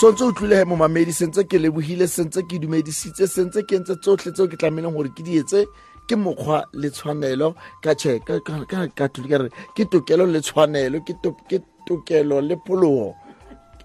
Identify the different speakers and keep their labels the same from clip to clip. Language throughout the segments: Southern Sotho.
Speaker 1: Sontse o tlile he momamedi, sentse ke lebohile, sentse ke dumedisitse, sentse ke entse tsohle tseo ke tlamehileng hore ke di etse, ke mokgwa le tshwanelo ka tjhe, ka ka ka ka ka re ke tokelo le tshwanelo, ke ke tokelo le pholoho.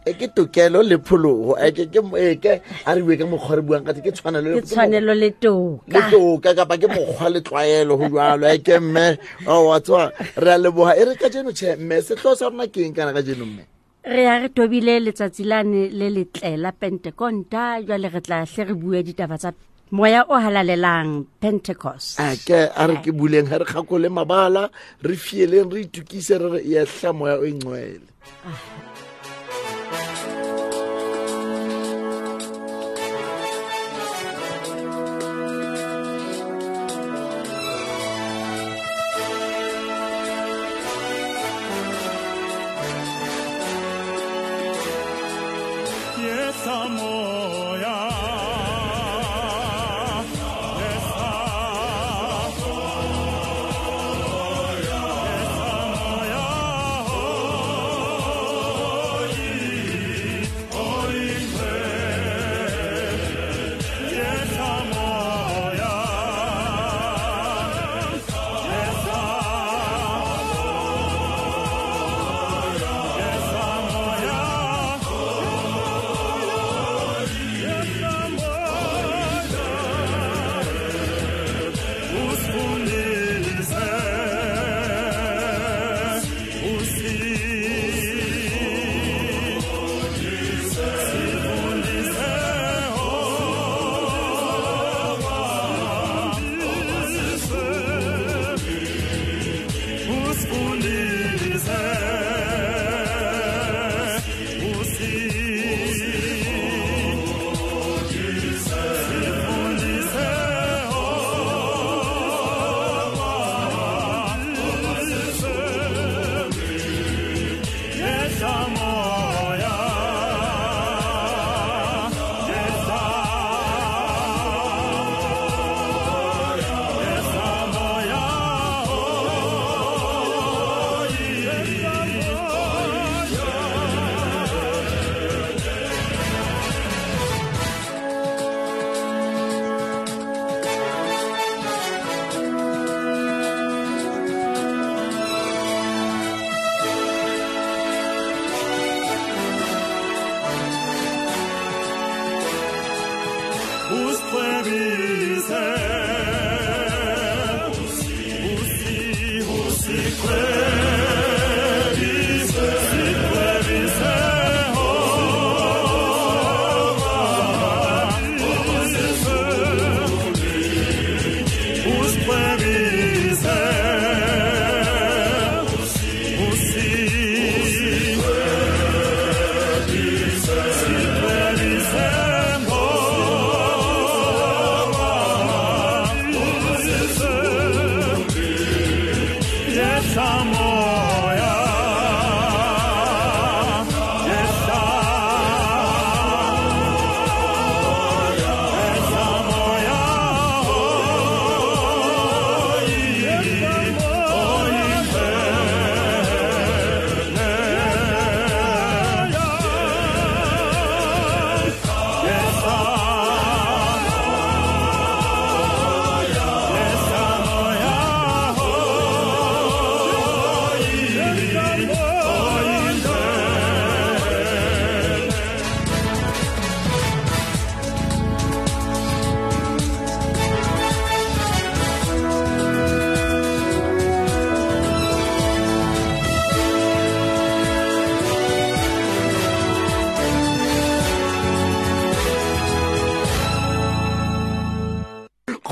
Speaker 1: E ke tokelo le pholoho. E ke ke e ke a re bue ka mokgwa re buang ka teng, ke tshwanelo
Speaker 2: le ke tshwanelo le toka.
Speaker 1: Le toka kapa ke mokgwa le tlwaelo ho jwalo. E ke mme, oh, wa tswa re a leboha. E re ka jeno tjhe mme, sehlooho sa rona ke eng kana ka jeno mme?
Speaker 2: Re ya re tobile letsatsi lane le letle la Pentekonta, jwale re tla hle re bue ditaba tsa moya o halalelang, Pentecost.
Speaker 1: A ke a re ke buleng ha re kgakole mabala, re fieleng, re itukise, re re yehla moya o ingcwele.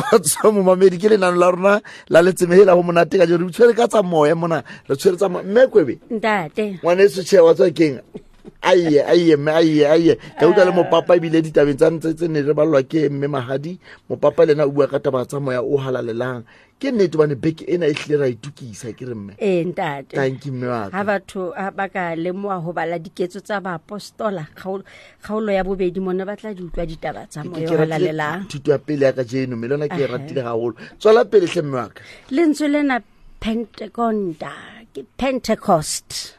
Speaker 1: Kgotso momamedi, ke lenano la rona la letsemehela ho monate ka jeno. Re tshwere ka tsa moya mona, re tshwere tsa moya. Mme Kwebe,
Speaker 2: Ntate.
Speaker 1: Ngwaneso tjhe, wa tswa keng? Aiye, aiye, mme, aiye, aiye. Ka utlwa le mopapa ebile ditabeng tsa ntse tse ne re ballwa ke mme Mahadi. Mopapa le yena o bua ka taba tsa moya o halalelang. Ke nnete hobane beke ena e hlile ra itukisa, ke re mme?
Speaker 2: Ee, ntate.
Speaker 1: Thank you, mme wa ka.
Speaker 2: Ha batho ha ba ka lemoha ho bala diketso tsa baapostola, kgaolo ya bobedi mona ba tla di utlwa ditaba tsa
Speaker 1: Ke
Speaker 2: moya
Speaker 1: ke
Speaker 2: o
Speaker 1: ratile
Speaker 2: halalelang.
Speaker 1: thuto ya pele ya kajeno, mme le yona ke e ratile haholo. Tswela pele hle, mme wa ka.
Speaker 2: Lentswe lena Pentekonta, ke Pentecost.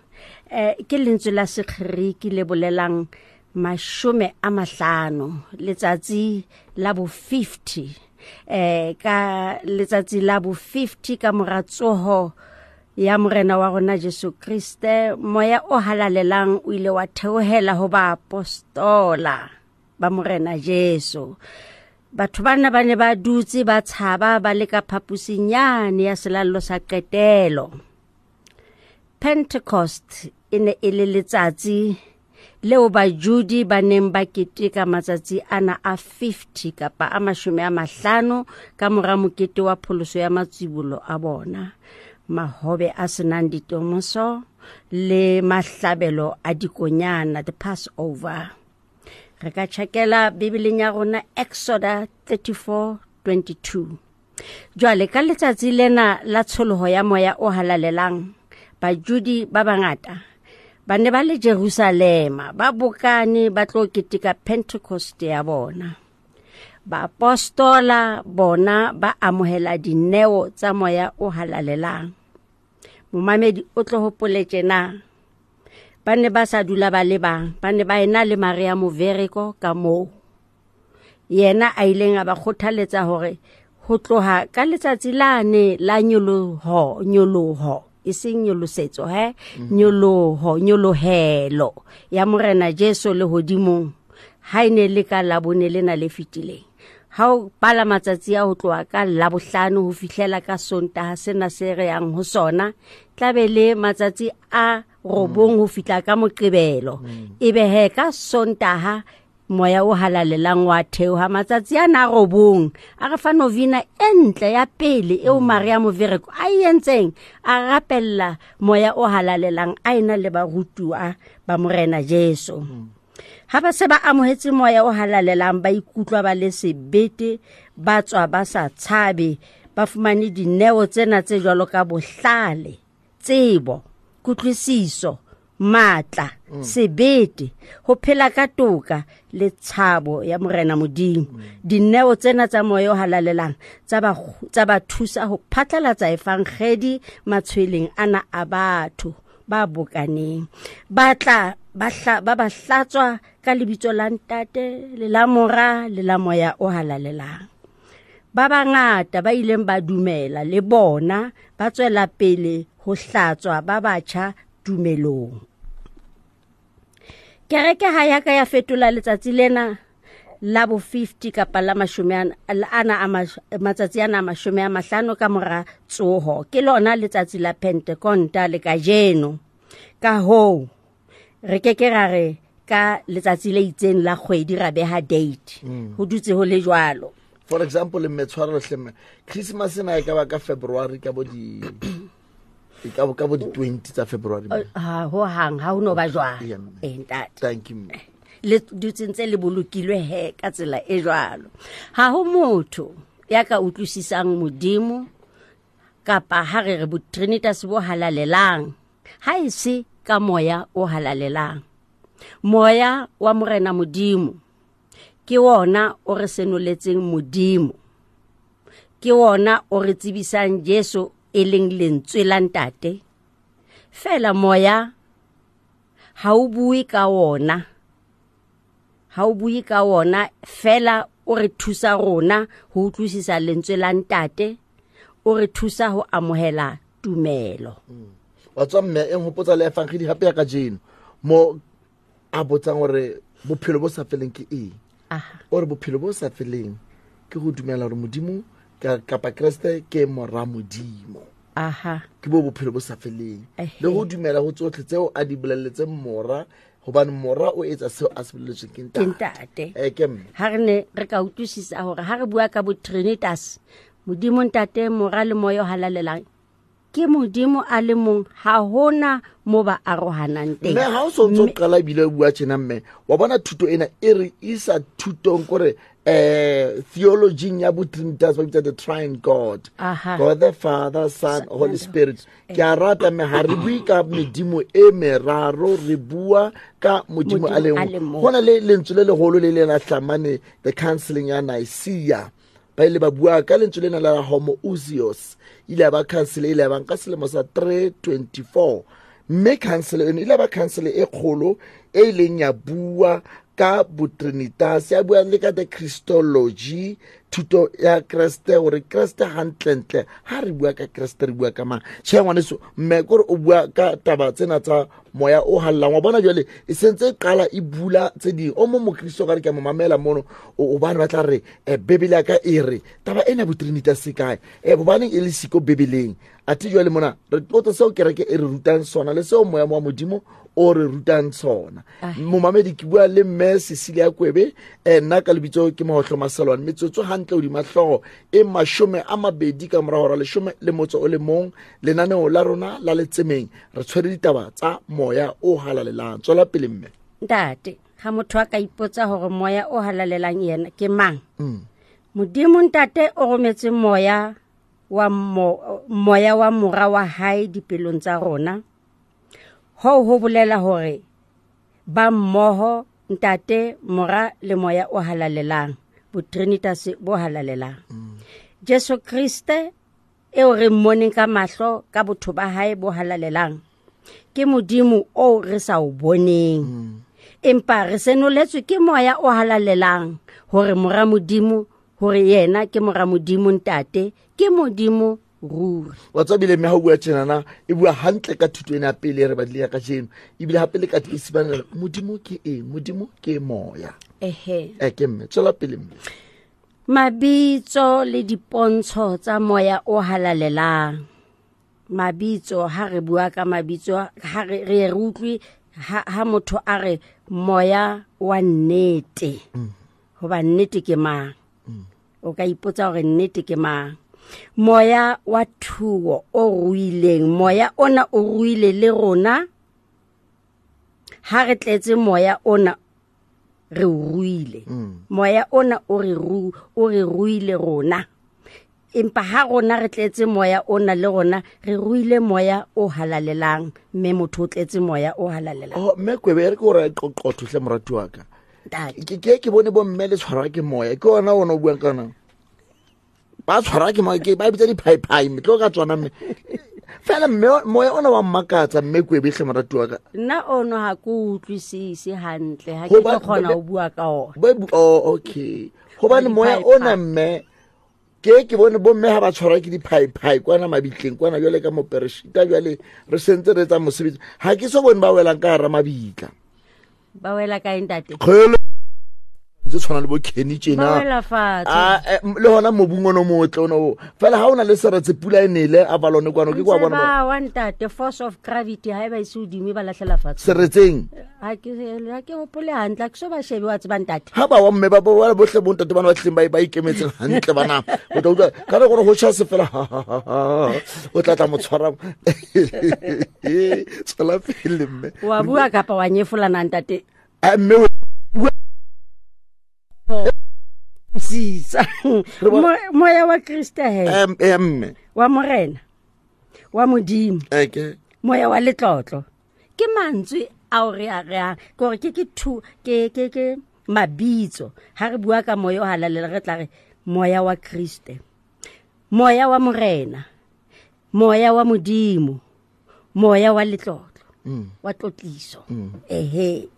Speaker 2: Ke lentswe la Segeriki le bolelang 50, letsatsi la bo 50, ka letsatsi la bo 50 ka mora tsoho ya morena wa rona Jesu Kriste, moya o halalelang o ile wa theohela ho baapostola ba morena Jesu. Batho bana ba ne ba dutse ba tshaba ba le ka phaposing yane ya selallo sa qetelo. Pentecost e ne e le letsatsi leo Bajudi ba neng ba keteka matsatsi ana a 50 kapa a 50 ka mora mokete wa pholoso ya matsibolo a bona, mahobe a senang ditomoso le mahlabelo a dikonyana, the Passover. Re ka tjhakela Bibeleng ya rona Exoda 34:22. Jwale ka letsatsi lena la tsholoho ya moya o halalelang, Bajudi ba bangata ba ne ba le Jerusalema, ba bokane ba tlo keteka Pentecost ya bona. Baapostola bona ba amohela dineo tsa moya o halalelang. Momamedi o tlo hopole tjena, ba ne ba sa dula ba le bang, ba ne ba ena le Maria Movereko ka moo. Yena a ileng a ba kgothaletsa hore ho tloha ka letsatsi lane la nyoloho, e seng nyolosetso, nyoloho, nyolohelo ya morena Jesu lehodimong, ha e ne le ka Labone lena le fetileng. Ha o bala matsatsi a ho tloha ka Labohlano ho fihlela ka Sontaha sena se re yang ho sona, tlabe le matsatsi a 9 ho fihla ka Moqebelo. Ebe he ka Sontaha moya o halalelang wa theoha matsatsi ana a 9, a re fa novena e ntle ya pele eo Maria Movereko a e entseng, a rapella moya o halalelang a ena le barutuwa ba morena Jesu. Ha ba se ba amohetse moya o halalelang, ba ikutlwa ba le sebete, ba tswa ba sa tshabe, ba fumane dineo tsena tse jwalo ka bohlale, tsebo, kutlwisiso, matla, sebete, ho phela ka toka le tshabo ya morena Modimo. Dineo tsena tsa moya o halalelang tsa ba thusa ho phatlalatsa evangedi matshweleng ana a batho ba bokaneng. Ba tla ba hlatswa ka lebitso la Ntate le la Mora le la Moya o halalelang. Ba bangata ba ileng ba dumela le bona ba tswela pele ho hlatswa ba batjha tumelong. Kereke ha ya ka ya fetola letsatsi lena la bo 50 kapa la matsatsi ana a 50 ka mora tsoho. Ke lona letsatsi la Pentekonta le kajeno. Ka hoo re ke ke ra re ka letsatsi le itseng la kgwedi ra beha date. Ho dutse ho le jwalo.
Speaker 1: For example, mme tshwarelo hle mme, Christmas ena e ka ba ka February ka bo di e ka bo di 20 tsa February.
Speaker 2: Ha ho hang ha ho no ba jwalo. Ntate.
Speaker 1: Thank you.
Speaker 2: Le dutse ntse le bolokilwe he ka tsela e jwalo. Ha ho motho ya ka utlwisisang Modimo kapa ha re re bo Trinitas bo halalelang, ha e se ka moya o halalelang. Moya wa morena Modimo ke wona o re senoletseng Modimo, ke wona o re tsebisang Jesu e leng lentswe la Ntate. Fela moya ha o bue ka wona, ha o bue ka wona, fela o re thusa rona ho utlwisisa lentswe la Ntate, o re thusa ho amohela tumelo.
Speaker 1: Wa tswa mme e nhopotsa le evangeli hape ya kajeno mo a botsang hore bophelo bo sa feleng ke eng. O re bophelo bo sa feleng ke ho dumela hore Modimo kapa Kreste ke mora Modimo. Ke bo bophelo bo sa feleng. Le ho dumela ho tsohle tseo a di bolelletseng mora, hobane mora o etsa seo a se bolelletsweng ke Ntate. Ke mme.
Speaker 2: Ha re ne re ka utlwisisa hore ha re bua ka bo Trinitas, Modimo Ntate, Mora le Moya o halalelang, ke Modimo a le mong, ha hona mo ba arohanang teng.
Speaker 1: Mme ha o so ntso qala ebile o bua tjena mme, wa bona thuto ena e re isa thutong kore theology ya bo Trinitas ba bitsa the Trine God. God the Father, Son, Holy Spirit. Ke a rata mme ha re bue ka medimo e meraro, re bua ka Modimo a le mong. Ho na le lentswe le leholo le le la hlamane the counseling ya Nicaea. Ba ile ba bua ka lentswe lena la homoousios. Ile ba council ile ba nka selemo sa 324. Mme council eno ile ba council e kgolo e ileng ya bua ka botrinitas, ya bua le ka the Christology, thuto ya Kreste, hore Kreste hantlentle ha re bua ka Kreste re bua ka mang. Tjhe ngwaneso, mme kore o bua ka taba tsena tsa moya o hallang. Wa bona jwale e sentse e qala e bula tse ding. O mong mokristo ka re ke a mo mamela mono, hobane ba tla re Bibele ya ka e re taba ena botrinitas e kae, hobaneng e le siko Bibeleng. Athe jwale mona re tlotse seo kereke e re rutang sona le seo moya wa Modimo o re rutang sona. Momamedi ke bua le mme Cecilia Kwebe, nna ka lebitso ke Mahohlo Maselwane. Metsotso hantle hodima hlooho e 20 ka mora hora 11, lenaneo la rona la Letsemeng re tshwere ditaba tsa moya o halalelang. Tswela pele mme.
Speaker 2: Ntate, ha motho a ka ipotsa hore moya o halalelang yena ke mang? Modimo ntate o rometse moya wa moya wa mora wa hae dipelong tsa rona. Ho ho bolela hore ba mmoho ntate, mora le moya o halalelang, botrinitas bo halalelang. Jesu Kriste eo re mmoneng ka mahlo ka botho ba hae bo halalelang ke Modimo o re sa o boneng. Empa re senoletswe ke moya o halalelang hore mora Modimo, hore yena ke mora Modimo ntate, ke Modimo ruri.
Speaker 1: Wa tseba bile mme ha o bua tjenana, e bua hantle ka thuto ena ya pele e re badile ya kajeno. Ebile hape le ka isibana Modimo ke eng? Modimo ke moya.
Speaker 2: Ehe.
Speaker 1: Ke mme, tswela pele mme.
Speaker 2: Mabitso le dipontsho tsa moya o halalelang. Mabitso, ha re bua ka mabitso, ha re re utlwe ha motho a re moya wa nnete. Hoba nnete ke mang? O ka ipotsa hore nnete ke mang? Moya wa thuo o ruileng, moya ona o ruile le rona. Ha re tletse moya ona re o ruile. Moya ona o re ruile rona. Empa ha rona re tletse moya ona le rona re ruile moya o halalelang, mme motho o tletse moya o halalelang.
Speaker 1: Oh, mme Kwebe, re ke hore qoqotho hle morati wa ka. Ke bone bo mme le tshwarwa ke moya. Ke ona ona o buang ka ona. Ba tshwarwa ke moya, ke ba bitsa diphaiphai, mme tlo ka tswana mme. Fela mme moya ona wa mmakatsa mme Kwebe hle morati wa ka.
Speaker 2: Nna ono ha ke utlwisise hantle, ha ke tlo kgona ho bua ka ona.
Speaker 1: Oh, okay. Hobane moya ona mme ke bone bo mme ha ba tshwarwa ke diphaiphai kwana mabitleng kwana jwale ka mopereshita jwale re sentse re etsa mosebetsi. Ha ke so bone ba welang ka hara mabitla.
Speaker 2: Ba wela kae ntate?
Speaker 1: Kgele tse tshwana le bo Kenny tjena.
Speaker 2: Ba wela fatshe.
Speaker 1: Le hona mobung ono motle ono o. Fela ha ona le seretse pula e nele a balone kwano ke kwa bona.
Speaker 2: Ba wa ntate, force of gravity ha e ba ise hodimo ba lahlela fatshe.
Speaker 1: Seretseng.
Speaker 2: Ha ke hopole hantle, ha ke so ba shebe wa tseba ntate.
Speaker 1: Ha ba wa mme ba ba bohle bo ntate bana ba tleng ba ikemetseng hantle bana. O tla utlwa ka re gore ho tjha se fela o tla tla mo tshwara. Tswela pele mme.
Speaker 2: Wa bua kapa wa nyefolana ntate?
Speaker 1: Mme
Speaker 2: sisa. Moya wa Kriste he.
Speaker 1: Mme.
Speaker 2: Wa Morena. Wa Modimo.
Speaker 1: Okay.
Speaker 2: Moya wa letlotlo. Ke mantswe ao re a reang, ke hore ke thu ke mabitso. Ha re bua ka moya o halalelang re tla re moya wa Kriste, moya wa Morena, moya wa Modimo, moya wa letlotlo, wa tlotliso. Ehe.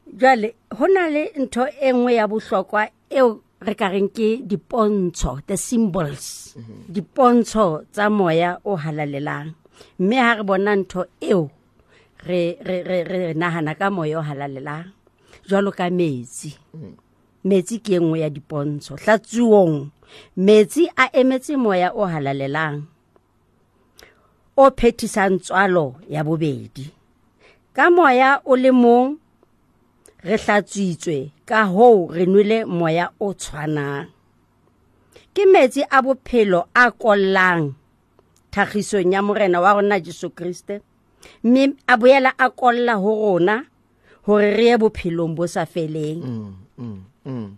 Speaker 2: Jwale ho na le ntho e nngwe ya bohlokwa eo re ka reng ke dipontsho, the symbols, dipontsho tsa moya o halalelang. Mme ha re bona ntho eo re nahana ka moya o halalelang. Jwalo ka metsi. Metsi ke e nngwe ya dipontsho. Hlatsuong, metsi a emetse moya o halalelang o phethisang tswalo ya bobedi. Ka moya o le mong re hlatswitswe, ka hoo re nwele moya o tshwanang. Ke metsi a bophelo a kollang thagisong ya Morena wa rona Jesu Kriste, mme a boela a kolla ho rona hore re ye bophelong bo sa feleng.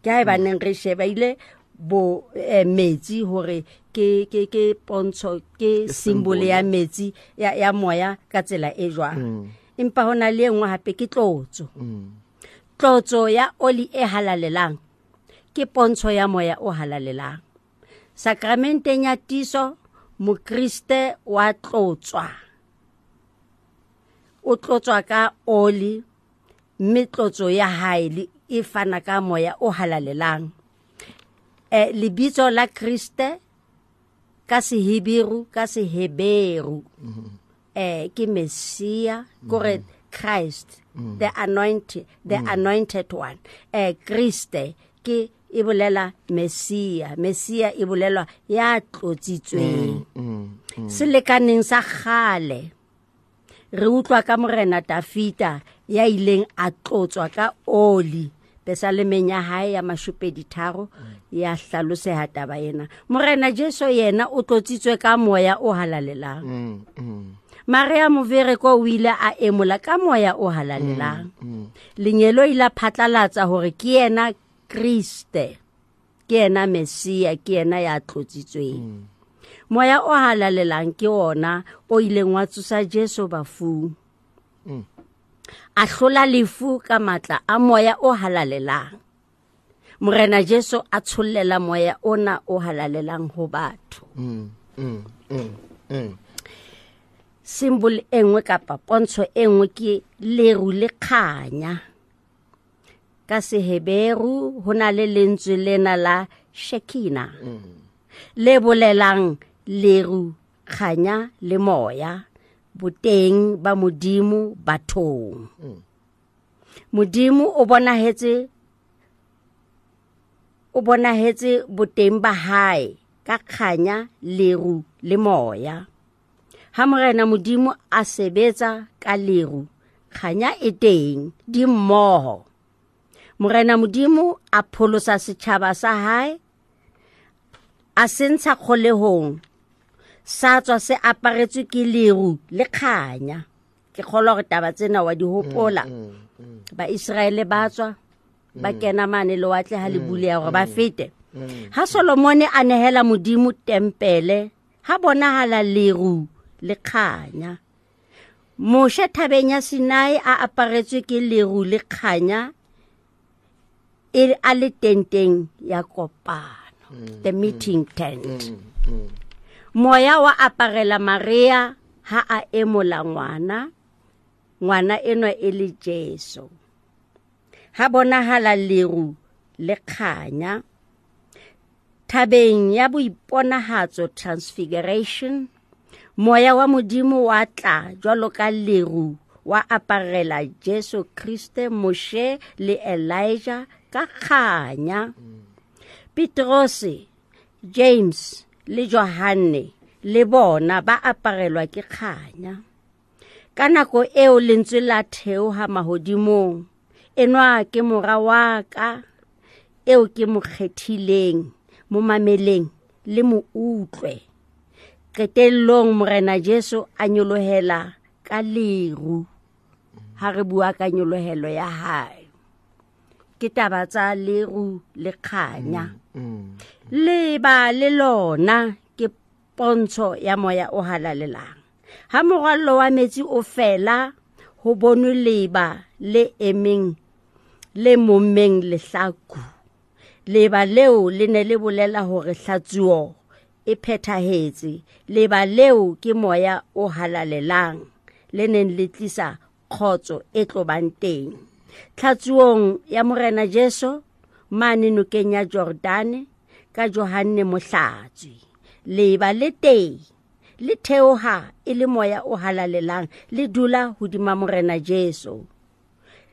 Speaker 2: Ke ha e baneng re sheba ile bo metsi hore ke pontsho, ke symbol ya metsi ya moya ka tsela e jwang. Empa hona le e nngwe hape ke tlotso. Tlotso ya oli e halalelang ke pontsho ya moya o halalelang. Sakramenteng ya tiiso mokriste wa tlotswa. O tlotswa ka oli Mme tlotso ya hae e fana ka moya o halalelang. Lebitso la Kriste ka Seheberu, ka Seheberu ke Messia, kore Christ, the anointed, the anointed one. Kriste ke e bolela Messia, Messia e bolelwa ya tlotsitsweng. Selekaneng sa kgale re utlwa ka Morena Dafita ya ileng a tlotswa ka oli. Pesalemeng ya hae ya 23 ya hlaloseha taba ena. Morena Jesu yena o tlotsitswe ka moya o halalelang. Maria Movereko o ile a emola ka moya o halalelang. Lengeloi la phatlalatsa hore ke yena Kriste, ke yena Messia, ke yena ya tlotsitsweng. Moya o halalelang ke ona o ileng wa tsosa Jesu bafung. A hlola lefu ka matla a moya o halalelang. Morena Jesu a tshollela moya ona o halalelang ho batho. Symbol e nngwe kapa pontsho e nngwe ke leru le kganya. Ka Seheberu ho na le lentswe lena la Shekina, le bolelang leru, kganya le moya, boteng ba Modimo bathong. Modimo o bonahetse boteng ba hae ka kganya, leru le moya. Ha Morena Modimo a sebetsa ka leru, kganya e teng, di mmoho. Morena Modimo a pholosa setjhaba sa hae, a se ntsha kgolehong, sa tswa se aparetswe ke leru le kganya. Ke kgolwa hore taba tsena wa di hopola. Baiseraele ba tswa ba kena mane lewatle ha le buleha hore ba fete. Ha Solomone a nehela Modimo tempele, ha bonahala leru le kganya. Moshe thabeng ya Sinai a aparetswe ke leru le kganya, e a le tenteng ya kopano, the meeting tent. Moya wa aparela Maria ha a emola ngwana, ngwana enwa e le Jesu. Ha bonahala leru le kganya. Thabeng ya boiponahatso, transfiguration, moya wa Modimo wa tla jwalo ka leru, wa aparela Jesu Kriste, Moshe le Elijah ka kganya. Petrose, James le Johanne le bona ba aparelwa ke kganya. Ka nako eo lentswe la theoha mahodimong, enwa ke mora wa ka eo ke mo kgethileng, mo mameleng le mo utlwe. Qetellong Morena Jesu a nyolohela ka leru. Ha re bua ka nyolohelo ya hae, ke taba tsa leru le kganya. Leba le lona ke pontsho ya moya o halalelang. Ha morwallo wa metsi o fela, ho bonwe leba le emeng le mommeng lehlaku. Leba leo le ne le bolela hore hlatsuo e phethahetse. Leba leo ke moya o halalelang le neng le tlisa kgotso e tlobang teng. Tlhatsuong ya Morena Jesu mane nokeng ya Jordane ka Johanne Mohlatswi, leba le teng le theoha e le moya o halalelang, le dula hodima Morena Jesu.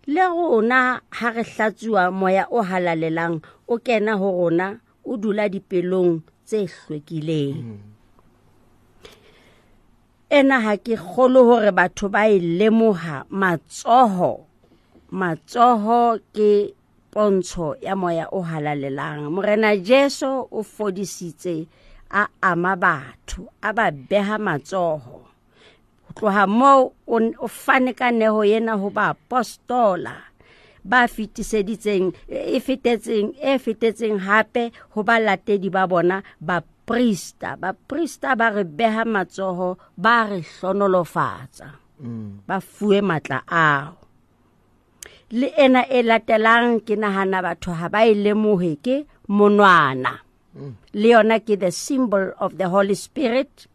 Speaker 2: Le rona ha re hlatsuwa moya o halalelang o kena ho rona, o dula dipelong tse hlwekileng. Ena ha ke kgolo hore batho ba e lemoha. Matsoho ke pontsho ya moya o halalelang. Morena Jesu o fodisitse a ama batho, a ba beha matsoho. Ho tloha moo o fane ka neho ena ho baapostola ba fetiseditseng e fetetseng hape ho balatedi ba bona baprista. Baprista ba re beha matsoho, ba re hlonolofatsa, ba fuwe matla ao. Le ena e latelang ke nahana batho ha ba e lemohe, ke monwana. Le yona ke the symbol of the Holy Spirit.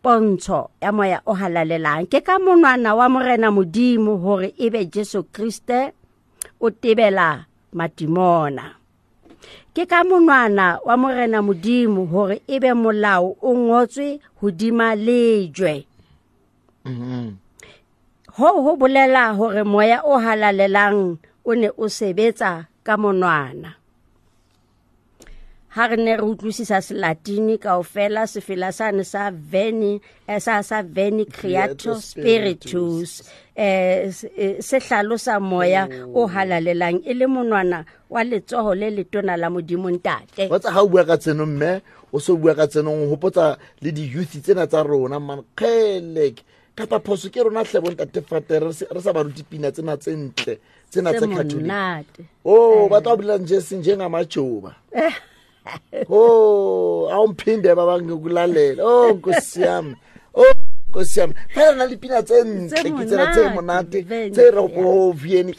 Speaker 2: Pontsho ya moya o halalelang ke ka monwana wa Morena Modimo hore ebe Jesu Kriste o tebela matimona. Ke ka monwana wa Morena Modimo hore ebe molao o ngotswe hodima lejwe. Ho bolela hore moya o halalelang o ne o sebetsa ka monwana. Ha re ne re utlwisisa Selatini kaofela, sefela sane sa Veni, sa Veni Creator Spiritus, se hlalosa moya o halalelang e le monwana wa letsoho le letona la Modimo Ntate.
Speaker 1: Wa tsa ha o bua ka tseno mme, o so bua ka tseno, o hopotsa le di-youth tsena tsa rona, man, kgelek. Kapa phoso ke rona hle bo ntate Fate, re sa ba rute pina tsena tse ntle, tsena tse Catholic. Oh, ba tla bolela nje seng njengamajoba. Oh, awumphinde baba ngikulalela. Oh, Nkosi yami. Oh, Nkosi yami. Phela na le pina tse ntle, ke tsena tse monate, tse re go vieni.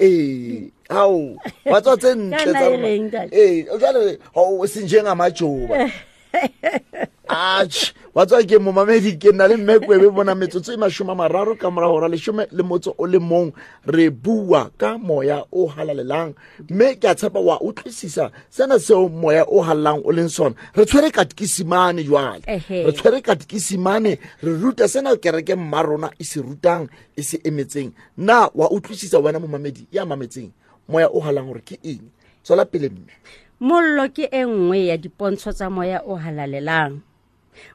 Speaker 1: Hao, ba tswa tse ntle tsa rona. Jwale o seng njengamajoba. Atjhe, wa tswa ke momamedi, ke nna le mme Kwebe bona metsotso e 30 ka mora hora 11, re bua ka moya o halalelang, mme ke a tshepa wa utlwisisa sena seo moya o halalelang o leng sona. Re tshwere katekisimane jwale, re tshwere katekisimane, re ruta sena kereke mma rona e se rutang, e se emetseng. Na wa utlwisisa wena momamedi ya mametseng moya o halalang hore ke eng? Tswela pele mme.
Speaker 2: Mollo ke e nngwe ya dipontsho tsa moya o halalelang.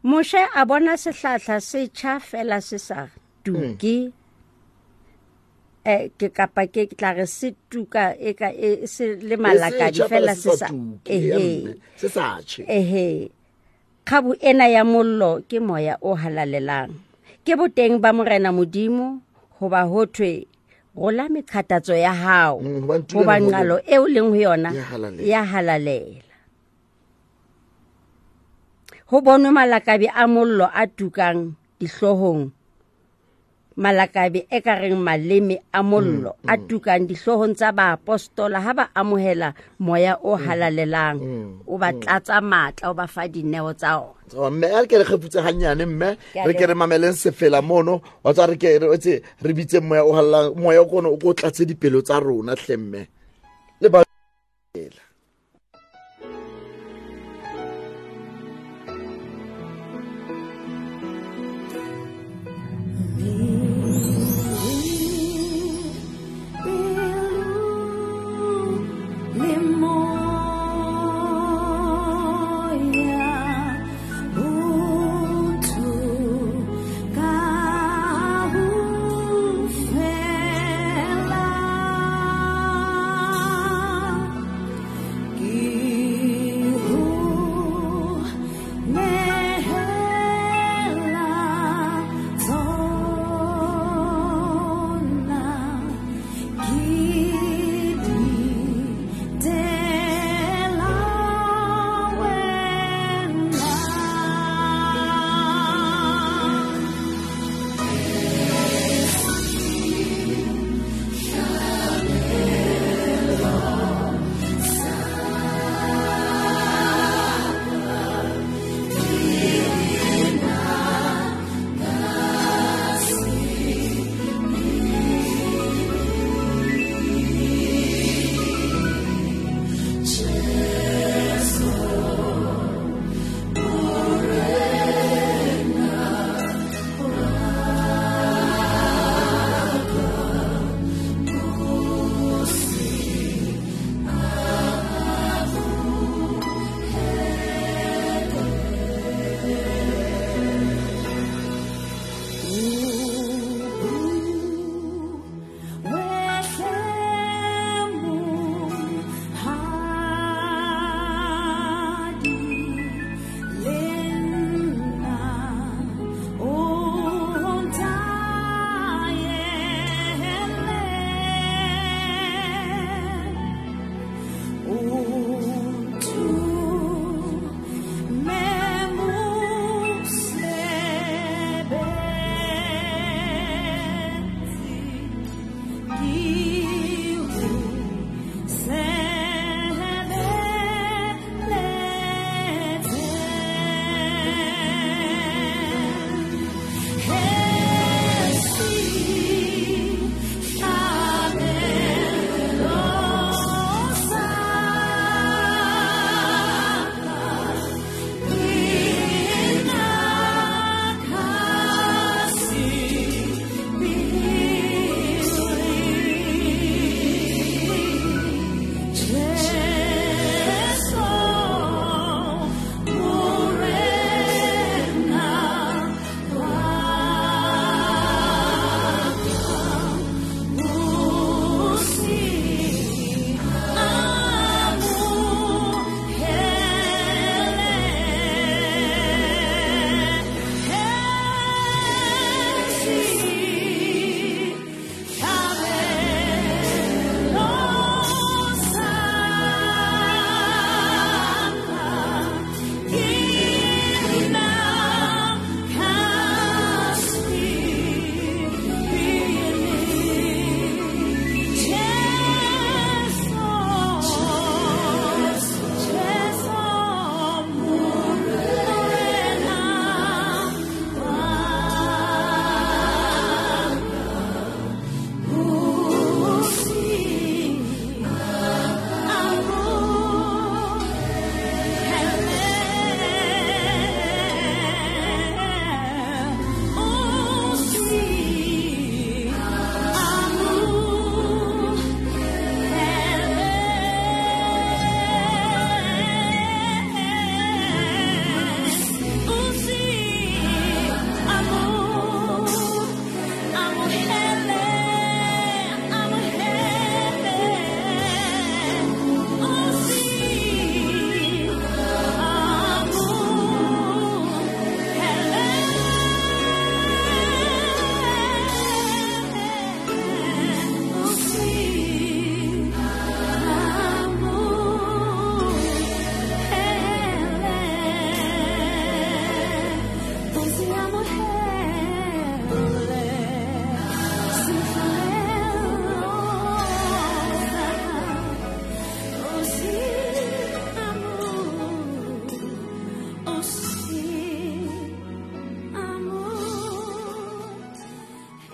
Speaker 2: Moshe a bona sehlahla se tjha fela se sa tuke. Ke kapa ke tla re se tuka e ka e se le malakadi fela se sa
Speaker 1: se sa tjhe.
Speaker 2: Ehe. Kgabu ena ya mollo ke moya o halalelang. Ke boteng ba Morena Modimo hoba ho thwe rola meqhatatso ya hao, hoba nqalo eo leng ho yona ya halalela. Ho bonwe malakabe a mollo a tukang dihloohong, malakabe e ka reng maleme a mollo a tukang dihloohong tsa baapostola ha ba amohela moya o halalelang, o ba tlatsa matla, o ba fa dineo tsa ona.
Speaker 1: Mme a ke re kgefutse hanyane mme, re ke re mameleng sefela mono, wa tswa re ke re tse re bitse moya o halalelang, moya o kono o ko tlatse dipelo tsa rona hle mme. Le ba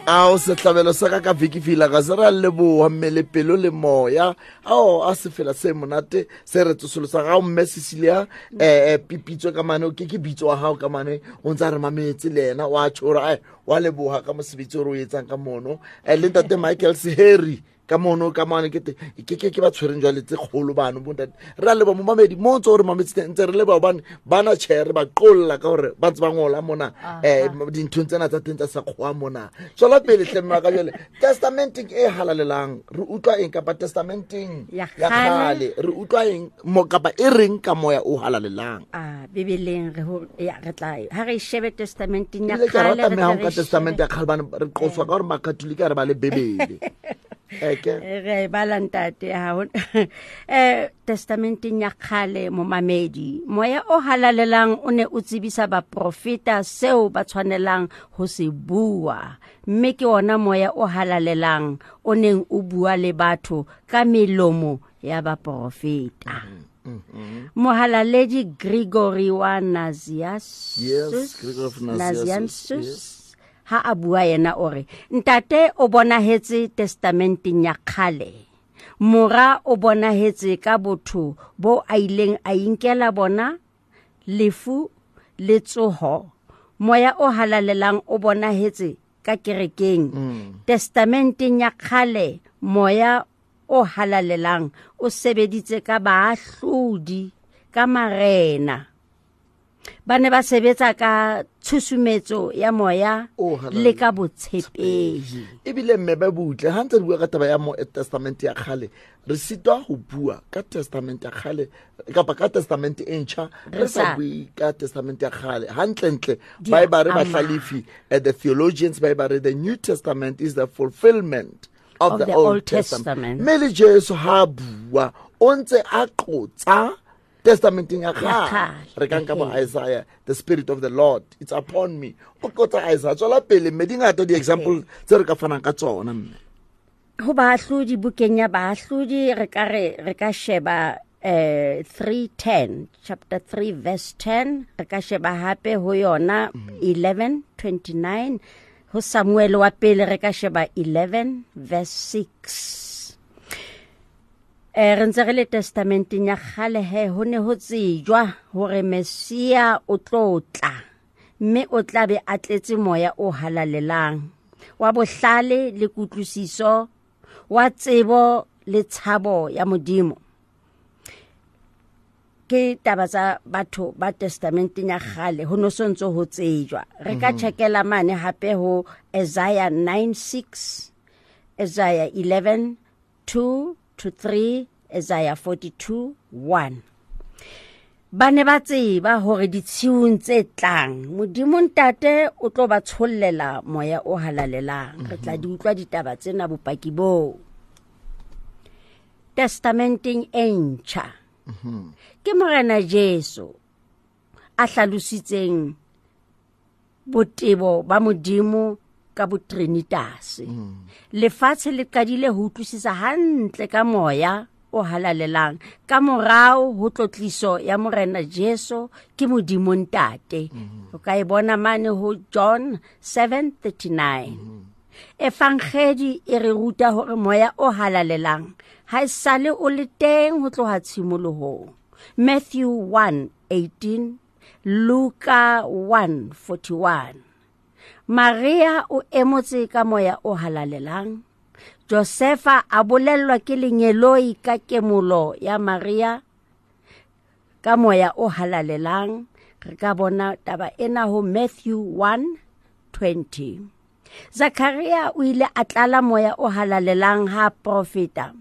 Speaker 1: Ao sehlabelo sa ka ka viki fila ga se ra leboa mmele pelo le moya. Ao a sefela se monate se re tsosolosa ga o mme Cecilia pipitswe ka mane ke bitso wa gago ka mane o ntse a re mametse le ena wa tšhora ai wa leboga ka mosebetsi o re o etsang ka mono le ntate Michael Seheri ka mono ka mane ke ke ba tshwereng jwale tse kgolo bano bo ntate re a leboha momamedi mo ntse o re mametse teng ntse re leboha hobane bana tjhe re ba qolla ka hore ba ntse ba ngola mona dinthong tsena tsa teng tsa sekgowa mona. Tswela pele hle mme wa ka jwale testamenteng e halalelang re utlwa eng kapa testamenteng
Speaker 2: Ya
Speaker 1: ya
Speaker 2: kgale.
Speaker 1: kgale re utlwa eng mo kapa e reng ka moya o halalelang?
Speaker 2: A bibeleng re ho ya re tla ha re shebe testamenteng ya
Speaker 1: Ebile ke
Speaker 2: kgale
Speaker 1: rata
Speaker 2: re
Speaker 1: mme ha
Speaker 2: tle
Speaker 1: o
Speaker 2: re
Speaker 1: nka testamente
Speaker 2: shebe
Speaker 1: ya kgale bane re qoswa ka hore makatolika re ba le bebele. Eke.
Speaker 2: Re e bala ntate ha ho testamenteng ya kgale momamedi moya o halalelang o ne o tsebisa baprofeta seo ba tshwanelang ho se bua, mme ke ona moya o halalelang o neng o bua le batho ka melomo ya baprofeta. Mohalaledi Gregory wa Nazianzus,
Speaker 1: Yes, Gregory of Nazianzus,
Speaker 2: Nazianzus,
Speaker 1: yes.
Speaker 2: Ha a bua yena o re ntate o bonahetse testamenteng ya kgale, mora o bonahetse ka botho bo a ileng a inkela bona lefu le tsoho, moya o halalelang o bonahetse ka kerekeng. Testamenteng ya kgale moya o halalelang o sebeditse ka baahlodi, ka marena. Ba ne ba sebetsa ka tshusumetso ya moya
Speaker 1: O halalelang.
Speaker 2: le ka botshepehi.
Speaker 1: Ebile mme ba butle ha ntse re bua ka taba ya mo testament ya kgale re sitwa ho bua ka testament ya kgale kapa ka testament e ntjha re
Speaker 2: Re
Speaker 1: sa
Speaker 2: sa
Speaker 1: bue ka testament ya kgale. Hantlentle
Speaker 2: Di
Speaker 1: ba e ba re
Speaker 2: ama.
Speaker 1: bahlalefi, the theologians ba e ba re the New Testament is the fulfillment of
Speaker 2: Of
Speaker 1: the
Speaker 2: the
Speaker 1: Old
Speaker 2: Old
Speaker 1: Testament.
Speaker 2: Testament.
Speaker 1: Mme le Jesu ha bua o ntse a qotsa testamenteng ya
Speaker 2: Ya
Speaker 1: kgale.
Speaker 2: kgale.
Speaker 1: Re ka nka bo Isaiah, the spirit of the Lord it's upon me. O qotsa Isaiah. Tswela pele mme di ngata di-example tse re ka fanang ka tsona mme.
Speaker 2: Ho baahlodi, bukeng ya baahlodi re ka re re ka sheba 3:10, chapter 3 verse 10, re ka sheba hape ho yona 11:29, ho Samuel wa pele re ka sheba 11 verse 6. Re ntse re le testamenteng ya kgale he, ho ne ho tsejwa hore Messia o tlo tla, mme o tla be a tletse moya o halalelang wa bohlale le kutlwisiso, wa tsebo le tshabo ya Modimo. Ke taba tsa batho ba testamenteng ya kgale, ho no so ntso ho tsejwa. Re ka checkela mane hape ho Isaiah 9:6, Isaiah 11:2 to 3, Isaiah 42:1. Ba ne ba tseba hore ditshiung tse tlang Modimo Ntate o tlo ba tshollela moya o halalelang. Re tla di utlwa ditaba tsena bopaki boo. Testamenteng e ntjha ke Morena Jesu a hlalositseng botebo ba Modimo ka botrinitas. Lefatshe le qadile ho utlwisisa hantle ka moya o halalelang ka morao ho tlotliso ya Morena Jesu ke Modimo Ntate. O ka e bona mane ho John 7:39. Evangeli e re ruta hore moya o halalelang ha esale o le teng ho tloha tshimolohong. Matthew 1:18, Luka 1:41. Maria o emotse ka moya o halalelang. Josefa a bolellwa ke lengeloi ka kemolo ya Maria ka moya o halalelang. Re ka bona taba ena ho Matthew 1:20. Zakaria o ile a tlala moya o halalelang ha profeta.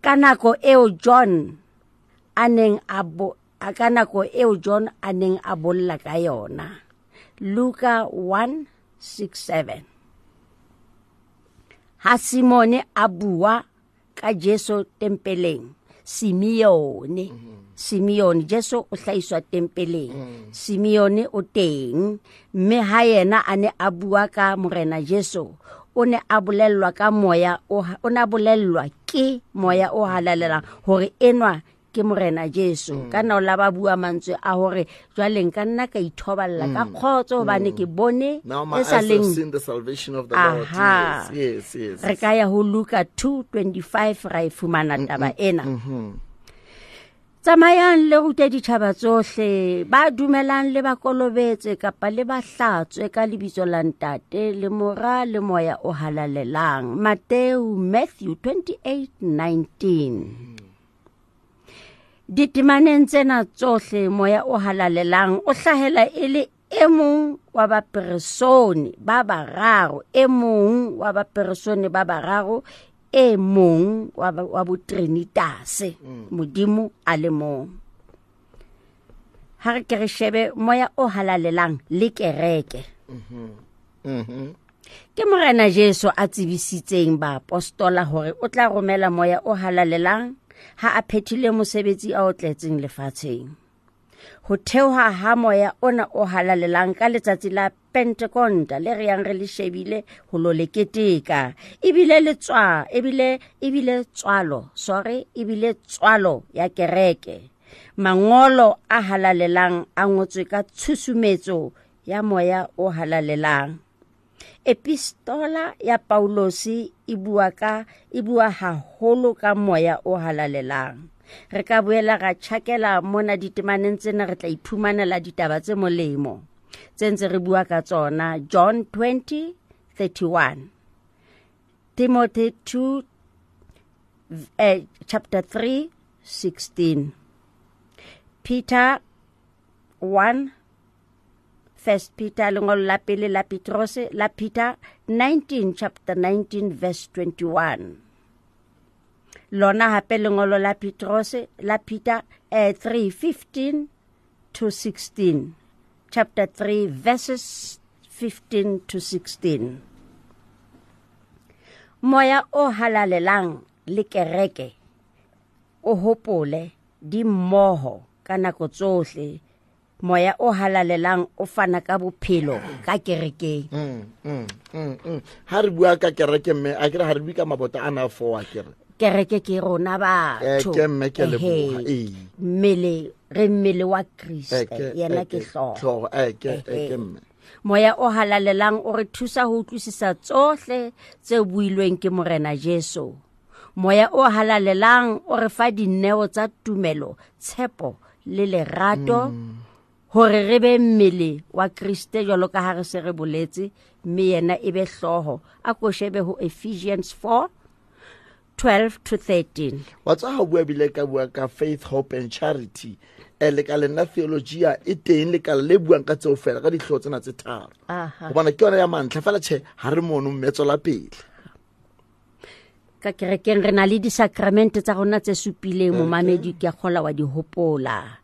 Speaker 2: Ka nako eo John a neng a bo, ka nako eo John a neng a bolla ka yona. Luka 1:6-7. Ha Simone a bua ka Jesu tempeleng, Simeone, Simeone, Jesu o hlahiswa tempeleng. Simeone o teng, mme ha yena a ne a bua ka Morena Jesu, o ne a bolellwa ka moya o ha, o ne a bolellwa ke moya o halalelang hore enwa ke Morena Jesu. Ka nna o la ba bua mantswe a hore jwale nka nna ka ithoballa ka kgotso hobane ke bone
Speaker 1: Now my
Speaker 2: e sa
Speaker 1: eyes have
Speaker 2: leng
Speaker 1: seen the salvation of the Lord.
Speaker 2: Aha.
Speaker 1: Yes, yes, yes.
Speaker 2: Re ka ya ho Luka 2:25 ra e fumana taba ena. Tsamayang le rute ditjhaba tsohle, ba dumelang le ba kolobetse kapa le ba hlatswe ka lebitso la Ntate le Mora le Moya o Halalelang. Mateo Matthew 28:19. Ditemaneng tsena tsohle Moya o Halalelang o hlahela e le e mong wa baperesone ba bararo, e mong wa baperesone ba bararo, e mong wa botrinitase, Modimo a le mong. Ha re ke re shebe Moya o Halalelang le kereke. Ke Morena Jesu a tsebisitseng baapostola hore o tla romela Moya o Halalelang ha a phethile mosebetsi a o tletseng lefatsheng. Ho theoha ha Moya ona o Halalelang ka letsatsi la Pentekonta le re yang re le shebile ho lo le keteka, ebile le tswa, ebile, ebile tswalo, sorry, ebile tswalo ya kereke. Mangolo a halalelang a ngotswe ka tshusumetso ya Moya o Halalelang. Epistola ya Paulosi e bua haholo ka Moya o Halalelang. Re ka boela ra tjhakela mona ditemaneng tsena, re tla iphumanela ditaba tse molemo tse ntse re bua ka tsona. John 20:31, Timothy 2, chapter 3:16, Peter 1, First Peter, lengolo la pele la Petrose la Peter 19, chapter 19 verse 21. Lona hape lengolo la Petrose la Peter 3:15 to 16, chapter 3 verses 15 to 16. Moya o Halalelang le kereke o hopole di mmoho ka nako tsohle. Moya o Halalelang o fana ka bophelo ka kerekeng.
Speaker 1: Ha re bua ka kereke mme a kere ha re bue ka mabota ana a four a kere.
Speaker 2: Kereke ke rona batho.
Speaker 1: Ke mme ke leboha.
Speaker 2: Ehe. Mmele, re mmele wa Kriste, yena ke hlooho.
Speaker 1: Hlooho, ke mme.
Speaker 2: Moya o Halalelang o re thusa ho utlwisisa tsohle tse builweng ke Morena Jesu. Moya o Halalelang o re fa dineo tsa tumelo, tshepo le lerato, hore re be mmele wa Kriste jwalo ka ha re se re boletse, mme yena e be hlooho. A ko shebe ho Ephesians 4:12 to 13.
Speaker 1: Wa tswa ha o bua bile ka bua ka faith, hope and charity. Lekaleng la theologia e teng lekala le buang ka tseo fela ka dihlooho tsena tse tharo. Hobane ke yona ya mantlha fela tjhe ha re mono mme tswela pele.
Speaker 2: Ka kerekeng re na le disakramente tsa rona tse supileng, momamedi ke a kgola wa di hopola.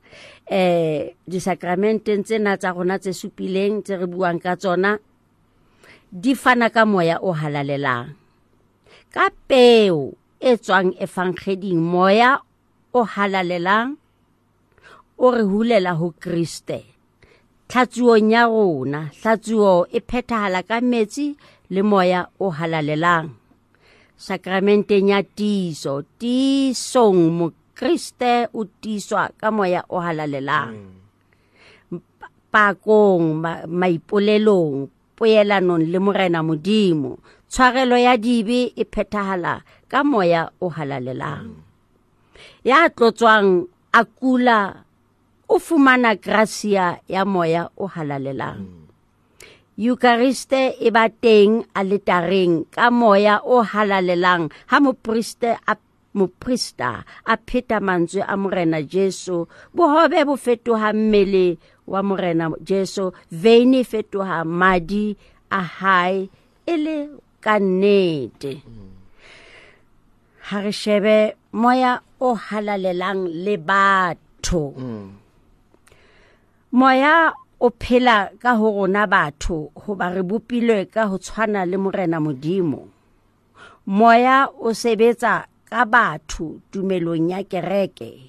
Speaker 2: Disakramenteng tsena tsa rona tse supileng tse re buang ka tsona di fana ka Moya o Halalelang. Ka peo e tswang evangeleng, Moya o Halalelang o re hulela ho Kriste. Tlhatsuong ya rona, hlatsuo e phethahala ka metsi le Moya o Halalelang. Sakramenteng ya tiiso, tiisong Mokriste o tiiswa ka Moya o Halalelang. Pakong, maipolelong, poelanong le Morena Modimo, tshwarelo ya dibe e phethahala ka Moya o Halalelang. Ya tlotswang a kula o fumana gracia ya Moya o Halalelang. Euchariste e ba teng aletareng ka Moya o Halalelang ha moprista a pheta mantswe a Morena Jesu. Bohobe bo fetoha mmele wa Morena Jesu, veine e fetoha madi a hae e le ka nnete. Ha re shebe Moya o Halalelang le batho. Moya o phela ka ho rona batho hoba re bopilwe ka ho tshwana le Morena Modimo. Moya o sebetsa ka batho tumelong ya kereke.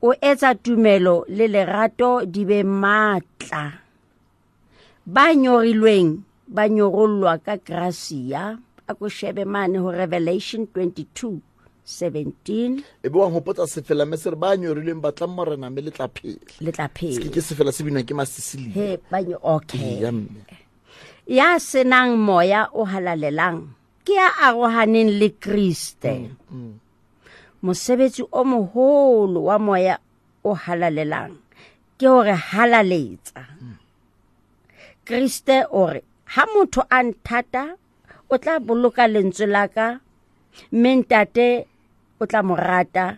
Speaker 2: O etsa tumelo le lerato di be matla. Ba nyorilweng ba nyorollwa ka gracia. A ko shebe mane ho Revelation 22:6. 17.
Speaker 1: E be wa hopotsa sefela mme se re ba nyorilweng batlang Morena mme le tla phela.
Speaker 2: Le tla phela.
Speaker 1: Ke sefela se binwang ke Masisilia.
Speaker 2: He ba nyo okay.
Speaker 1: Ya mme.
Speaker 2: Ya senang moya o halalelang ke ya arohaneng le Kriste. Mosebetsi o moholo wa moya o halalelang ke hore halaletsa. Kriste o re ha motho a nthata o tla boloka lentswe la ka, mme ntate o tla mo rata,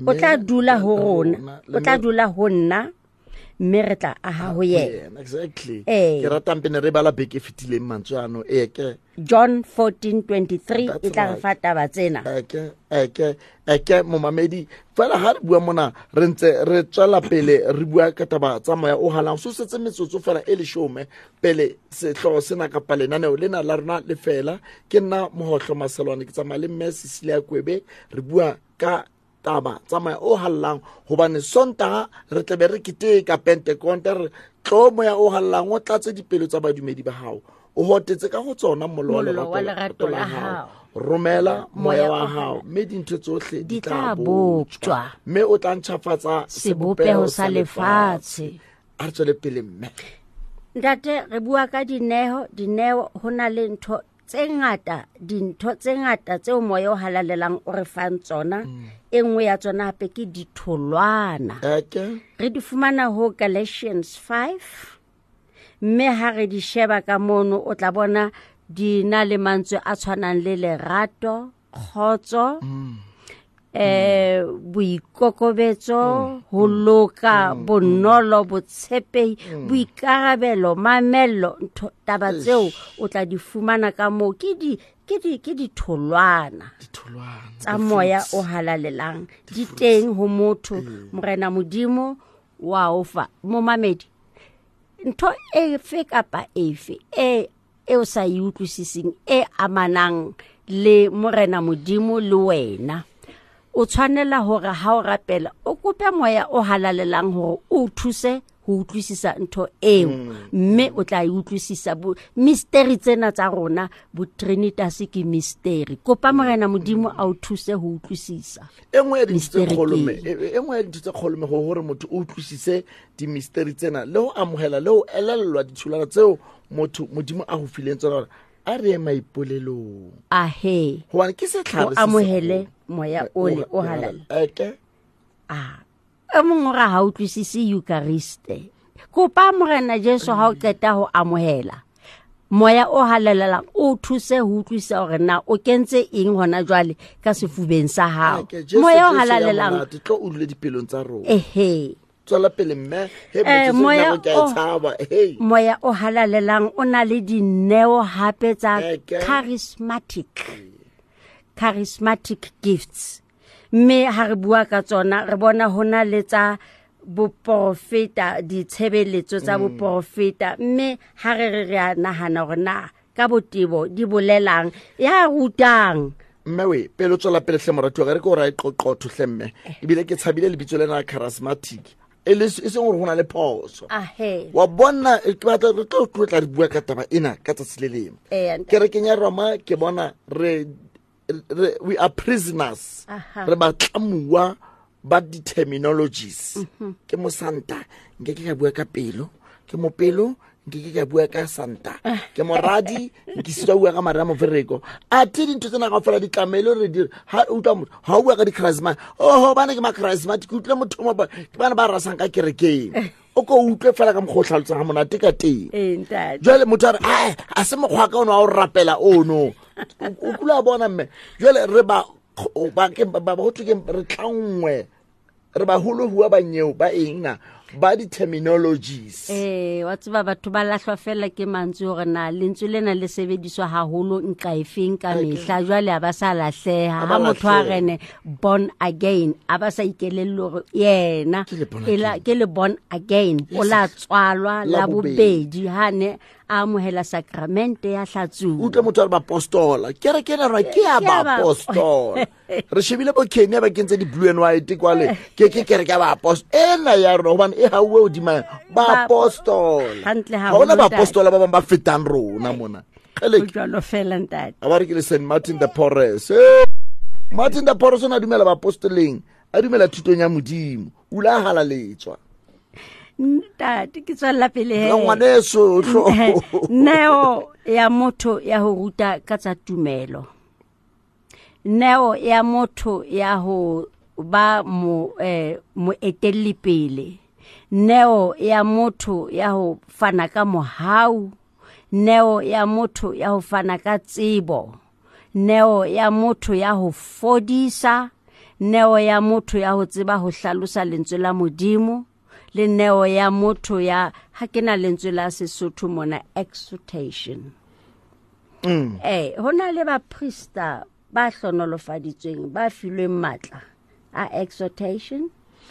Speaker 2: o tla dula ho rona, o tla dula ho nna, mme re tla aha ho yena.
Speaker 1: Exactly. Ke ratang pene re bala beke e fetileng mantswe ano. Ke
Speaker 2: John 14:23 e tla re fa taba tsena.
Speaker 1: Eke momamedi fela ha re bua mona re ntse re tswela pele re bua ka taba tsa moya o halang. So setse metsotso fela e leshome pele sehlooho sena kapa lenaneo lena la rona le fela. Ke nna Mohohlo Maselwane, ke tsamaya le mme Cecilia Kwebe, re bua ka taba tsa moya o hallang hobane Sontaha re tlabe re keteka Pentekonta, re tlo moya o hallang o tlatse dipelo tsa badumedi ba hao, o hotetse ka ho tsona mollo wa lerato la hao. Romela moya wa hao mme dintho tsohle di tla boptjwa, mme o tla ntjhafatsa
Speaker 2: sebopeho sa lefatshe.
Speaker 1: A re tswele pele mme.
Speaker 2: Ntate, re bua ka dineo. Dineo ho na le ntho tse ngata, dintho tse ngata tseo moya o halalelang o re fang tsona. E nngwe ya tsona hape ke ditholwana. Re di fumana ho Galatians 5, mme ha re di sheba ka mono o tla bona di na le mantswe a tshwanang le lerato, kgotso, boikokobetso, ho loka, bonolo, botshepehi, boikarabelo, mamello. Ntho taba tseo o tla di fumana ka moo ke ditholwana tsa moya o halalelang di teng ho motho. Morena Modimo wa o fa momamedi ntho efe kapa efe e o sa e utlwisising e amanang le Morena Modimo le wena, o tshwanela hore ha o rapela o kope moya o halalelang hore o thuse ho utlwisisa ntho eo, mme o tla e utlwisisa. Mystery tsena tsa rona bo Trinitas ke mystery. Kopa Morena Modimo a o thuse ho utlwisisa.
Speaker 1: E nngwe ya dintho tse kgolo mme hore motho o utlwisise di-mystery tsena le ho amohela le ho elellwa ditholwana tseo motho Modimo a ho fileng tsona, hore a re ye maipolelong.
Speaker 2: Ahe,
Speaker 1: hobane ke setlhare
Speaker 2: se amohele moya ole o halala. E mongwe o re ha utlwisise Eucharist. Kopa Morena Jesu ha o qeta ho amohela moya o halalelang o thuse ho utlwisisa hore na o kentse eng hona jwale ka sefubeng sa hao. Moya o halalelang
Speaker 1: tlo o dule dipelong tsa rona.
Speaker 2: Ehe.
Speaker 1: Tswela pele mme, he moya
Speaker 2: moya o halalelang o na le dineo hape tsa charismatic gifts. Mme ha re bua ka tsona re bona hona le tsa boprofeta, ditshebeletso tsa boprofeta, mme ha re re a nahana hore na ka botebo di bolelang ya rutang.
Speaker 1: Mme we pele o tswela pele hle moratuwa, re ke o ra e qoqotho hle mme, ebile ke tshabile lebitso lena charismatic e le e seng hore ho na le phoso. Wa bona ke batla re tlo tlotla re bua ka taba ena ka tsatsi le leng. Kerekeng ya Roma ke bona re we are prisoners. Re batlamuwa ba di-terminologies. Ke mosanta nke ke ka bua ka pelo, ke mopelo nke ke ka bua ka santa, ke moradi nke sitwa bua ka mara mofereko. Athe dintho tsena kaofela di tlamehile re di ha utlwa motho ha o bua ka di-charisma, oho bana ke ma-charismatic, ke utlwe motho mo ke bana ba rasang ka kerekeng. O ko utlwe fela ka mokgwa o tlhalosang ha monate ka teng. Jwale motho a re ae a se mokgwa ka ono wa o rapela ono. O kula bona mme. Jwale re ba ho thwe ke re tlangwe, re baholo hua ba nyeo ba eng na ba di-terminologies.
Speaker 2: Wa tseba batho ba lahlwa fela ke mantswe hore na lentswe lena le sebediswa haholo nqa efeng ka mehla. Jwale ha ba sa lahleha. Ha motho a rene born again, a ba sa ikelelle hore yena ke le born again, o la tswalwa la bobedi ha ne a amohela sakramente ya hlatsuwa.
Speaker 1: Utlwe motho a re bapostola, kereke ena rona ke ya bapostola. Re shebile bo Kenya ba kentse di-blue and white kwale, ke kereke ya baapostola ena ya rona, hobane e hauwe hodima baapostola. Ha hona baapostola ba bang ba fetang rona mona.
Speaker 2: Jwalo fela ntate.
Speaker 1: A ba re ke le St. Martin the Porres. Martin da Porres o ne a dumela baapostoleng, a dumela thutong ya Modimo, o ile a halaletswa.
Speaker 2: Ntate, ke tswella pele he.
Speaker 1: Ngwaneso, hlo.
Speaker 2: Neo ya motho ya ho ruta ka tsa tumelo. Neo ya motho ya ho ba moetelli pele. Neo ya motho ya ho fana ka mohau. Neo ya motho ya ho fana ka tsebo. Neo ya motho ya ho fodisa. Neo ya motho ya ho tseba ho hlalosa lentswe la Modimo. Le neo ya motho ya, ha ke na lentswe la Sesotho mona, exhortation. Ho na le baprista ba hlonolofaditsweng, ba filweng matla a exhortation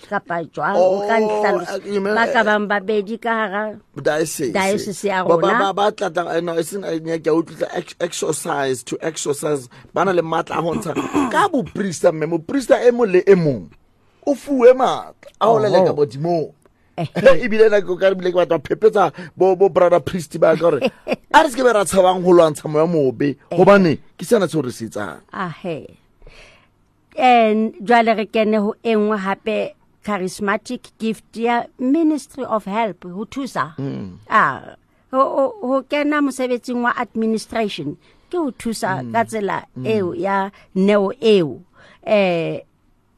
Speaker 2: kapa jwang, o ka
Speaker 1: Oh,
Speaker 2: nhlalosa.
Speaker 1: you mean,
Speaker 2: Ba ka bang babedi ka hara
Speaker 1: diocese.
Speaker 2: diocese ya
Speaker 1: Ba, ba,
Speaker 2: rona.
Speaker 1: ba, ba tla tla, no, e seng, ke a utlwisa, exercise, to exercise. Ba na le matla a ho ntsha. Ka boprista, mme, moprista e mong le e mong o fuwe matla a ho leleka bodimo. Ebile nna ke ka re bile ke batla ho phephetsa bo brother priest ba ka hore a re se ke be ra tshabang ho lwantsha moya mobe, hobane ke sena seo re se etsang.
Speaker 2: Ahe. And jwale re kene ho e nngwe hape, charismatic gift ya Ministry of Help, ho thusa. Ho kena mosebetsing wa administration ke ho thusa ka tsela eo ya neo eo.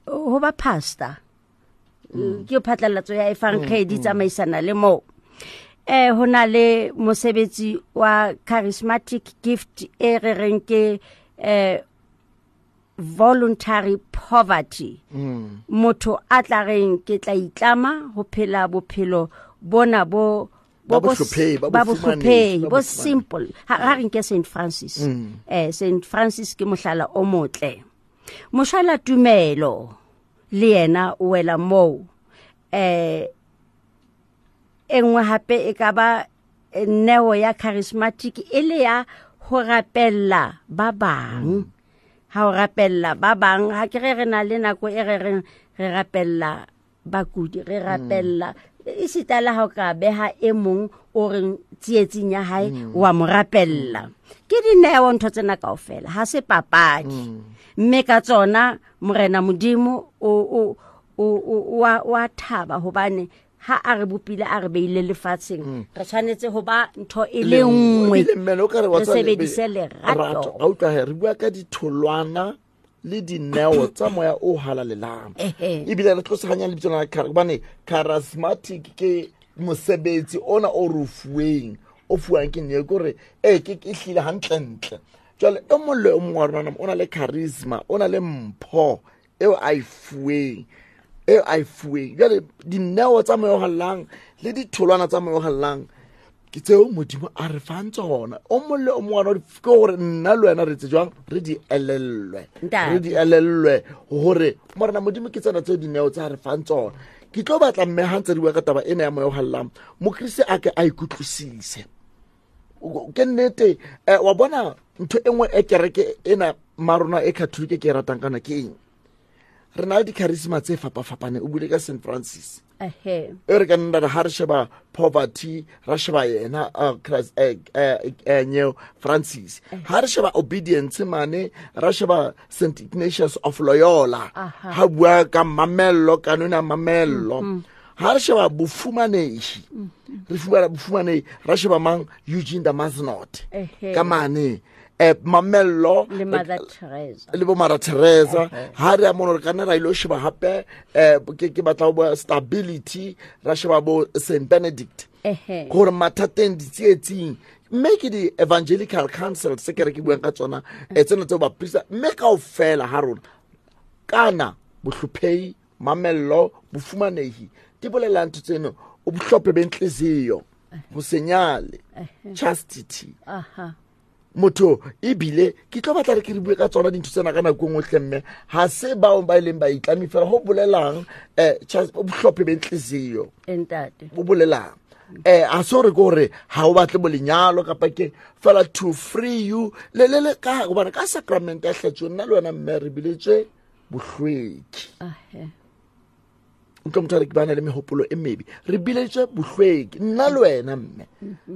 Speaker 2: Ho ba pastor. Ke phatlalatso ya efankgedi tsamaisana le moo. Ho na le mosebetsi wa charismatic gift e re reng ke voluntary poverty. Motho a tla reng ke tla itlama ho phela bophelo bona bo
Speaker 1: Ba bohlophehi, ba
Speaker 2: ba
Speaker 1: bofumanehi,
Speaker 2: bohlophehi,
Speaker 1: ba
Speaker 2: bo
Speaker 1: bofumanehi.
Speaker 2: simple. Ha re nke Saint Francis. Saint Francis ke mohlala o motle. Mohlala tumelo le yena o wela moo. E nngwe hape e ka ba neo ya charismatic e le ya ho rapella ba bang. Ha o rapella ba bang, ha ke re re na le nako e re reng re rapella bakudi, re rapella esita le ha o ka beha e mong o reng tsietsing ya hae, wa mo rapella. Ke dineo ntho tsena kaofela, ha se papadi. Mme ka tsona Morena Modimo o a thaba hobane ha a re bopile a re beile lefatsheng, re tshwanetse ho ba ntho e le
Speaker 1: Le nngwe.
Speaker 2: nngwe.
Speaker 1: Ebile mmele o ka re wa
Speaker 2: Re
Speaker 1: tswa le
Speaker 2: sebedise lerato.
Speaker 1: Rato. Ga utlwa he, re bua ka ditholwana le dineo tsa moya o halalelang. Ebile re tloseganya lebitso la hobane charismatic ke mosebetsi ona o re o fuweng, o fuwang ke neo, ke hore, ke hlile hantlentle. Jwale e mong le e mong wa rona o na le charisma, o na le mpho eo a e fuweng, eo a e fuweng. Jwale dineo tsa moya o halalelang le ditholwana tsa moya o halalelang ke tseo Modimo a re fang tsona. O mong le o mong wa rona ke hore nna le wena re tse jwang, re di elellwe.
Speaker 2: Ntate.
Speaker 1: Re di elellwe hore Morena Modimo ke tsena tseo dineo tsa re fang tsona. Ke tlo batla mme ha ntse re bua ka taba ena ya moya o halalelang, Mokriste a ke a ikutlwisise. Ke nnete, wa bona ntho e nngwe e kereke ena marona e Catholic ke e ratang kana ke eng? Re na le di-charisma tse fapafapaneng. O buile ka Saint Francis. E re ka nna re ha re sheba poverty, ra sheba yena, Christ, Neo Francis. Ha re sheba obedience mane, ra sheba Saint Ignatius of Loyola. Ha bua ka mamello, ka nona mamello. Ha re sheba bofumanehi, re fumana bofumanehi, ra sheba mang? Eugene de Mazenod. Ka mane. Mamello
Speaker 2: Le Mother Teresa.
Speaker 1: Le bo Mother Teresa. Ha re ya mono, re ka nna ra ilo sheba hape, ke batla ho bua stability, ra sheba bo Saint Benedict. Gore mathateng, ditsietsing, mme ke di-evangelical council se ke re ke buang ka tsona, tsena tseo baprista, mme kaofela ha rona, kana bohlophehi, mamello, bofumanehi, di bolela ntho tseno, o bohlophe bentliziyo, ho se nyale, chastity. Motho ebile ke tlo batla re ke re bue ka tsona dintho tsena ka nako e nngwe hle, mme ha se bao ba ileng ba itlame fela ho bolelang, o bohlophe bentliziyo.
Speaker 2: Ntate.
Speaker 1: Bo bolelang. Ha se hore ke hore ha o batle bo lenyalo kapa ke fela to free you le, le, le ka hobane ka sacrament ya hlatsuo nna le wena mme re biletswe bohlweki. Utlwa motho a re ke bana le mehopolo e mebe. Re bileditswe bohlweki, nna le wena mme.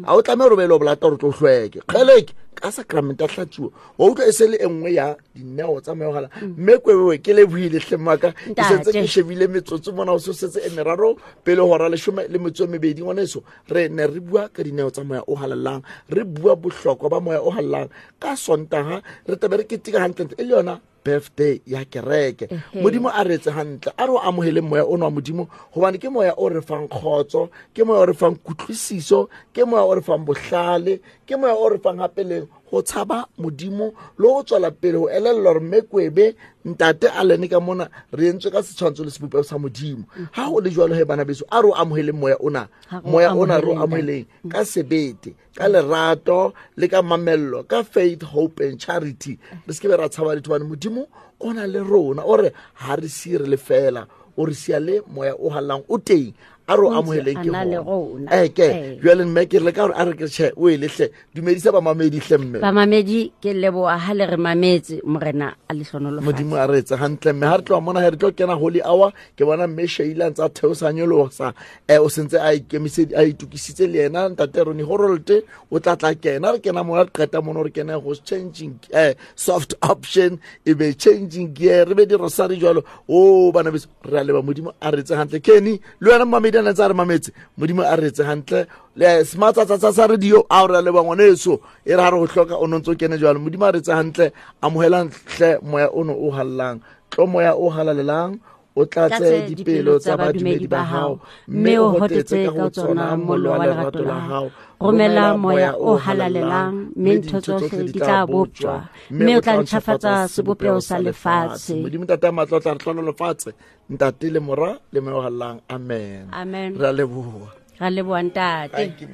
Speaker 1: A o tlameha gore o be le o bolata gore o tlo hlweke. Kgeleke ka sacrament a hlatsuwa. Wa utlwa e se le e nngwe ya dineo tsa moya o halalelang. Mme kwebewe ke lebohile hle mmaka. Ke sentse ke shebile metsotso mona, o se setse e meraro pele hora 12. Ngwaneso, re ne re bua ka dineo tsa moya o halalelang, re bua bohlokwa ba moya o halalelang. Ka Sontaga re tlabe re keteka hantlentle e le yona birthday ya kereke. Modimo a re etse hantle, a re o amoheleng moya ono wa Modimo, gobane ke moya o re fang kgotso, ke moya o re fang kutlwisiso, ke moya o re fang bohlale, ke moya o re fang gape le go tshaba Modimo le go tswela pele go elelelwa gore mme kwebe ntate a lene ka mona re entswe ka setshwantsho le sebopego sa Modimo. Ga go le jalo he bana beso, a re o amoheleng moya ona, moya ona re o amoheleng ka sebete, ka lerato le ka mamello, ka faith, hope and charity. Re se ke be ra tshaba letho, bane Modimo o na le rona, o re ha re sie re le fela, o re sia le moya o hallang o teng. A re o amoheleng ke gona. Eke jwale mme ke re ka gore a re ke tjhe o e lehle dumedisa bamamedi hle mme.
Speaker 2: Bamamedi ke leboha ha le re mametse, Morena a le hlonolofatse.
Speaker 1: Modimo a re etse hantle mme ha re tloha mona he re tlo kena holy hour. Ke bona mme Sheila ntse a theosa nyolosa, o sentse a ikemisedi a itukisitse le yena ntate Ronnie Horolte o tla tla kena, re kena mona re qeta mono re kena go changing soft option e be changing gear, re be di rosary jwalo. O bana beso re a leba, Modimo a re etse hantle. Kenny le wena mamedi a ntse a re mametse, Modimo a re etse hantle. Le smart tsa tsa tsa radio a re leba ngwaneso, e re ha re go hloka o ntse o kene jwalo. Modimo a re etse hantle, amohelang hle moya ono o hallang, tlo moya o halalelang o tlatse dipelo tsa badumedi ba hao, mme o hotetse ka ho tsona mollo wa lerato la hao.
Speaker 2: Romela moya o halalelang, mme ntho tsohle di tla boptjwa, mme o tla ntjhafatsa sebopeho sa lefatshe.
Speaker 1: Modimo Ntate a matla o tla re hlonolofatse, Ntate le Mora le Moya o halalelang. Amen.
Speaker 2: Amen.
Speaker 1: Re a leboha.
Speaker 2: Ra leboha ntate.
Speaker 1: Thank you.